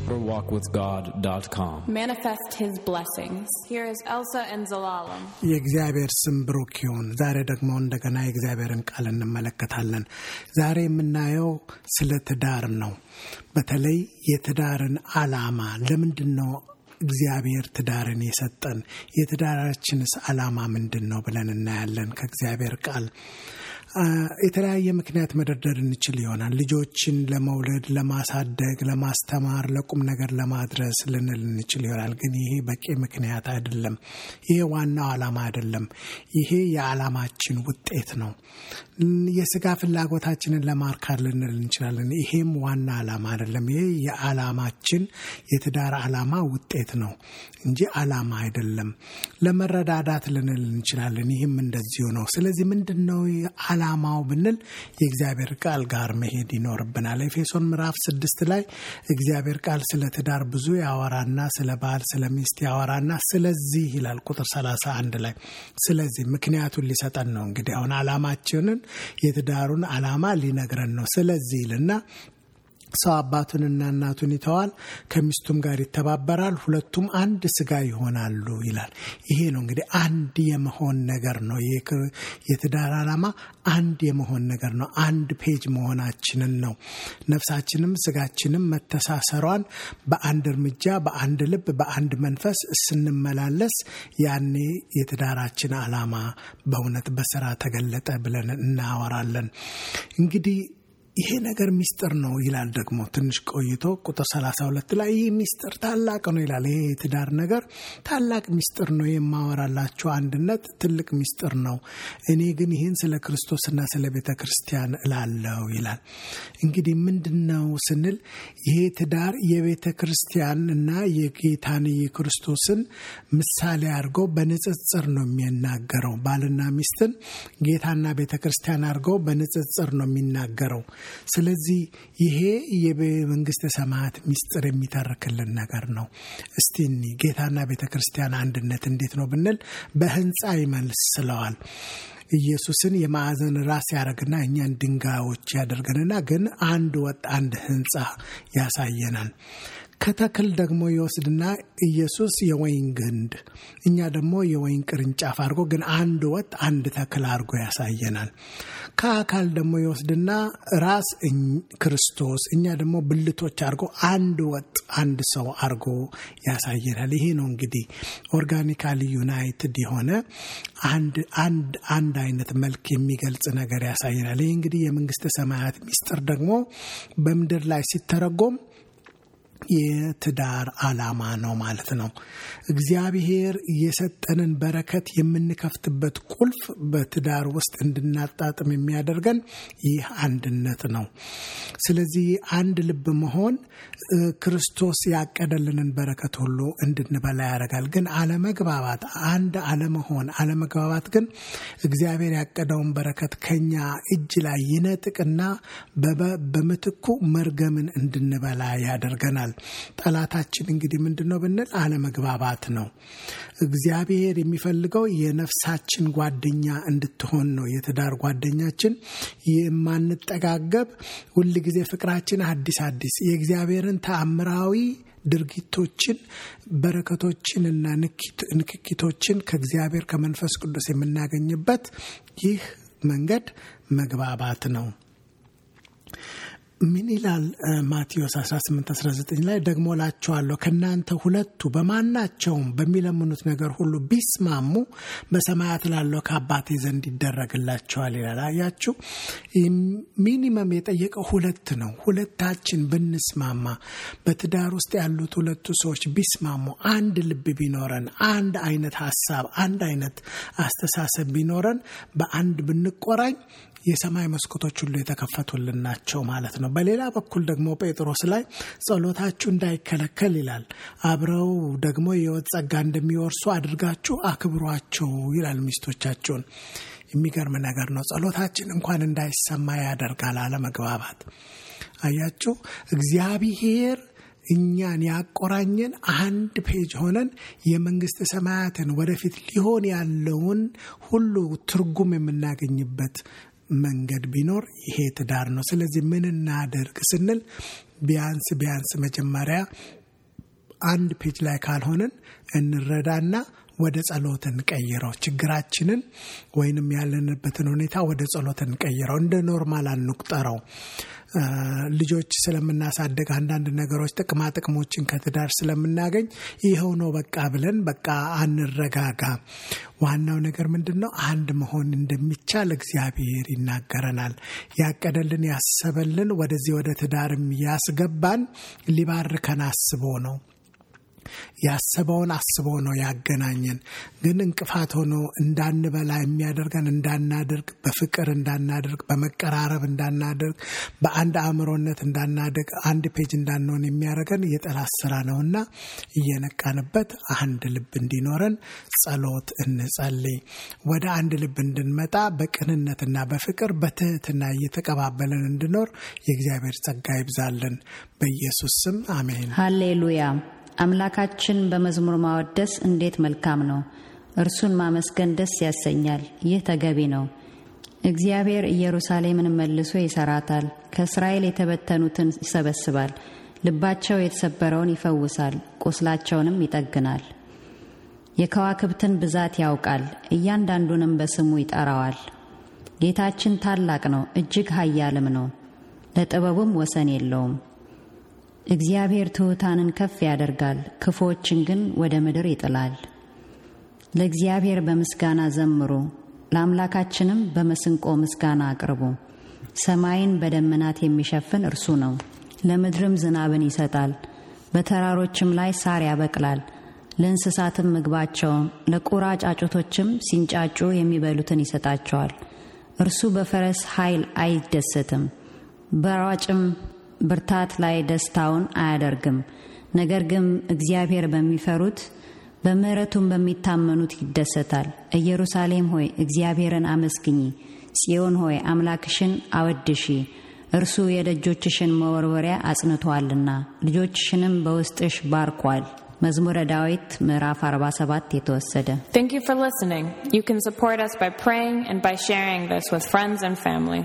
deeperwalkwithgod.com. Manifest His blessings. Here is Elsa and Zelalem. የእግዚአብሔር ስም ብሩክ ይሁን። ዛሬ ደግሞ እንደገና የእግዚአብሔርን ቃል እንመለከታለን። ዛሬ የምናየው ስለ ትዳር ነው። በተለይ የትዳርን ዓላማ ለምንድነው እግዚአብሔር ትዳርን የሰጠን? የትዳራችንስ ዓላማ ምንድነው ብለን እናያለን ከእግዚአብሔር ቃል። የተለያየ ምክንያት መደርደር እንችል ይሆናል። ልጆችን ለመውለድ፣ ለማሳደግ፣ ለማስተማር፣ ለቁም ነገር ለማድረስ ልንል እንችል ይሆናል። ግን ይሄ በቂ ምክንያት አይደለም። ይሄ ዋናው ዓላማ አይደለም። ይሄ የዓላማችን ውጤት ነው። የሥጋ ፍላጎታችንን ለማርካት ልንል እንችላለን። ይሄም ዋና ዓላማ አይደለም። ይሄ የዓላማችን የትዳር ዓላማ ውጤት ነው እንጂ ዓላማ አይደለም። ለመረዳዳት ልንል እንችላለን። ይሄም እንደዚሁ ነው። ስለዚህ ምንድነው ዓላማው ብንል የእግዚአብሔር ቃል ጋር መሄድ ይኖርብናል። ኤፌሶን ምዕራፍ 6 ላይ እግዚአብሔር ቃል ስለ ትዳር ብዙ ያወራና ስለ ባል ስለ ሚስት ያወራና ስለዚህ ይላል ቁጥር 31 ላይ ስለዚህ ምክንያቱን ሊሰጠን ነው። እንግዲህ አሁን ዓላማችንን የትዳሩን ዓላማ ሊነግረን ነው። ስለዚህ ይልና ሰው አባቱንና እናቱን ይተዋል፣ ከሚስቱም ጋር ይተባበራል፣ ሁለቱም አንድ ስጋ ይሆናሉ ይላል። ይሄ ነው እንግዲህ አንድ የመሆን ነገር ነው። የትዳር ዓላማ አንድ የመሆን ነገር ነው። አንድ ፔጅ መሆናችንን ነው። ነፍሳችንም ስጋችንም መተሳሰሯን በአንድ እርምጃ፣ በአንድ ልብ፣ በአንድ መንፈስ ስንመላለስ ያኔ የትዳራችን ዓላማ በእውነት በሥራ ተገለጠ ብለን እናወራለን። እንግዲህ ይሄ ነገር ሚስጥር ነው ይላል። ደግሞ ትንሽ ቆይቶ ቁጥር 32 ላይ ይሄ ሚስጥር ታላቅ ነው ይላል። ይሄ የትዳር ነገር ታላቅ ሚስጥር ነው። የማወራላችሁ አንድነት ትልቅ ሚስጥር ነው። እኔ ግን ይሄን ስለ ክርስቶስና ስለ ቤተ ክርስቲያን እላለሁ ይላል። እንግዲህ ምንድነው ስንል ይሄ ትዳር የቤተ ክርስቲያንና የጌታን የክርስቶስን ምሳሌ አድርጎ በንጽጽር ነው የሚናገረው። ባልና ሚስትን ጌታና ቤተ ክርስቲያን አድርጎ በንጽጽር ነው የሚናገረው። ስለዚህ ይሄ የመንግስተ ሰማያት ሚስጥር የሚተርክልን ነገር ነው። እስቲ ጌታና ቤተክርስቲያን አንድነት እንዴት ነው ብንል በህንጻ ይመስለዋል። ኢየሱስን የማዕዘን ራስ ያደርግና እኛን ድንጋዮች ያደርገንና ግን አንድ ወጥ አንድ ህንጻ ያሳየናል። ከተክል ደግሞ ይወስድና ኢየሱስ የወይን ግንድ እኛ ደግሞ የወይን ቅርንጫፍ አድርጎ ግን አንድ ወጥ አንድ ተክል አድርጎ ያሳየናል። ከአካል ደግሞ ይወስድና ራስ ክርስቶስ እኛ ደግሞ ብልቶች አድርጎ አንድ ወጥ አንድ ሰው አድርጎ ያሳየናል። ይሄ ነው እንግዲህ ኦርጋኒካሊ ዩናይትድ የሆነ አንድ አይነት መልክ የሚገልጽ ነገር ያሳየናል። ይሄ እንግዲህ የመንግስተ ሰማያት ሚስጥር ደግሞ በምድር ላይ ሲተረጎም የትዳር ዓላማ ነው ማለት ነው። እግዚአብሔር የሰጠንን በረከት የምንከፍትበት ቁልፍ በትዳር ውስጥ እንድናጣጥም የሚያደርገን ይህ አንድነት ነው። ስለዚህ አንድ ልብ መሆን ክርስቶስ ያቀደልንን በረከት ሁሉ እንድንበላ ያደርጋል። ግን አለመግባባት፣ አንድ አለመግባባት ግን እግዚአብሔር ያቀደውን በረከት ከኛ እጅ ላይ ይነጥቅና በምትኩ መርገምን እንድንበላ ያደርገናል። ጠላታችን እንግዲህ ምንድነው ብንል አለመግባባት ነው። እግዚአብሔር የሚፈልገው የነፍሳችን ጓደኛ እንድትሆን ነው። የትዳር ጓደኛችን የማንጠጋገብ ሁሉ ጊዜ ፍቅራችን አዲስ የእግዚአብሔርን ተአምራዊ ድርጊቶችን፣ በረከቶችን እና ንክኪቶችን ከእግዚአብሔር ከመንፈስ ቅዱስ የምናገኝበት ይህ መንገድ መግባባት ነው። ምን ይላል ማቴዎስ 18:19 ላይ ደግሞ እላችኋለሁ ከናንተ ሁለቱ በማናቸውም በሚለምኑት ነገር ሁሉ ቢስማሙ በሰማያት ላለው ከአባቴ ዘንድ ይደረግላቸዋል ይላል። አያችሁ፣ ሚኒመም የጠየቀው ሁለት ነው። ሁለታችን ብንስማማ፣ በትዳር ውስጥ ያሉት ሁለቱ ሰዎች ቢስማሙ፣ አንድ ልብ ቢኖረን፣ አንድ አይነት ሐሳብ፣ አንድ አይነት አስተሳሰብ ቢኖረን፣ በአንድ ብንቆራኝ የሰማይ መስኮቶች ሁሉ የተከፈቱልን ናቸው ማለት ነው። በሌላ በኩል ደግሞ ጴጥሮስ ላይ ጸሎታችሁ እንዳይከለከል ይላል። አብረው ደግሞ የሕይወት ጸጋ እንደሚወርሱ አድርጋችሁ አክብሯቸው ይላል ሚስቶቻቸውን። የሚገርም ነገር ነው። ጸሎታችን እንኳን እንዳይሰማ ያደርጋል አለመግባባት። አያችሁ፣ እግዚአብሔር እኛን ያቆራኘን አንድ ፔጅ ሆነን የመንግስተ ሰማያትን ወደፊት ሊሆን ያለውን ሁሉ ትርጉም የምናገኝበት መንገድ ቢኖር ይሄ ትዳር ነው። ስለዚህ ምን እናደርግ ስንል ቢያንስ መጀመሪያ አንድ ፔጅ ላይ ካልሆነን እንረዳና ወደ ጸሎት እንቀይረው ችግራችንን ወይንም ያለንበትን ሁኔታ ወደ ጸሎት እንቀይረው እንደ ኖርማል አንቁጠረው ልጆች ስለምናሳደግ አንዳንድ ነገሮች ጥቅሞችን ከትዳር ስለምናገኝ ይሄው ነው በቃ ብለን በቃ አንረጋጋ ዋናው ነገር ምንድነው አንድ መሆን እንደሚቻል እግዚአብሔር ይናገረናል ያቀደልን ያሰበልን ወደዚህ ወደ ትዳርም ያስገባን ሊባርከን አስቦ ነው ያሰበውን አስቦ ነው ያገናኘን ግን እንቅፋት ሆኖ እንዳንበላ የሚያደርገን እንዳናደርግ በፍቅር እንዳናደርግ በመቀራረብ እንዳናደርግ በአንድ አእምሮነት እንዳናደርግ አንድ ፔጅ እንዳንሆን የሚያደርገን የጠላት ስራ ነውና እየነቃንበት አንድ ልብ እንዲኖረን ጸሎት እንጸልይ ወደ አንድ ልብ እንድንመጣ በቅንነትና በፍቅር በትህትና እየተቀባበለን እንድኖር የእግዚአብሔር ጸጋ ይብዛልን በኢየሱስ ስም አሜን ሃሌሉያ አምላካችን በመዝሙር ማወደስ እንዴት መልካም ነው እርሱን ማመስገን ደስ ያሰኛል ይህ ተገቢ ነው እግዚአብሔር ኢየሩሳሌምን መልሶ ይሰራታል ከእስራኤል የተበተኑትን ይሰበስባል ልባቸው የተሰበረውን ይፈውሳል ቁስላቸውንም ይጠግናል የከዋክብትን ብዛት ያውቃል እያንዳንዱንም በስሙ ይጠራዋል ጌታችን ታላቅ ነው እጅግ ኃያልም ነው ለጥበቡም ወሰን የለውም እግዚአብሔር ትሑታንን ከፍ ያደርጋል ክፉዎችን ግን ወደ ምድር ይጥላል ለእግዚአብሔር በምስጋና ዘምሩ ለአምላካችንም በመስንቆ ምስጋና አቅርቡ ሰማይን በደመናት የሚሸፍን እርሱ ነው ለምድርም ዝናብን ይሰጣል በተራሮችም ላይ ሳር ያበቅላል ለእንስሳትም ምግባቸውን ለቁራ ጫጩቶችም ሲንጫጩ የሚበሉትን ይሰጣቸዋል እርሱ በፈረስ ኃይል አይደሰትም በሯጭም ብርታት ላይ ደስታውን አያደርግም ነገር ግን እግዚአብሔር በሚፈሩት በምህረቱም በሚታመኑት ይደሰታል ኢየሩሳሌም ሆይ እግዚአብሔርን አመስግኚ ጽዮን ሆይ አምላክሽን አወድሺ እርሱ የደጆችሽን መወርወሪያ አጽንቷልና ልጆችሽንም በውስጥሽ ባርኳል መዝሙረ ዳዊት ምዕራፍ 47 የተወሰደ Thank you for listening. You can support us by praying and by sharing this with friends and family.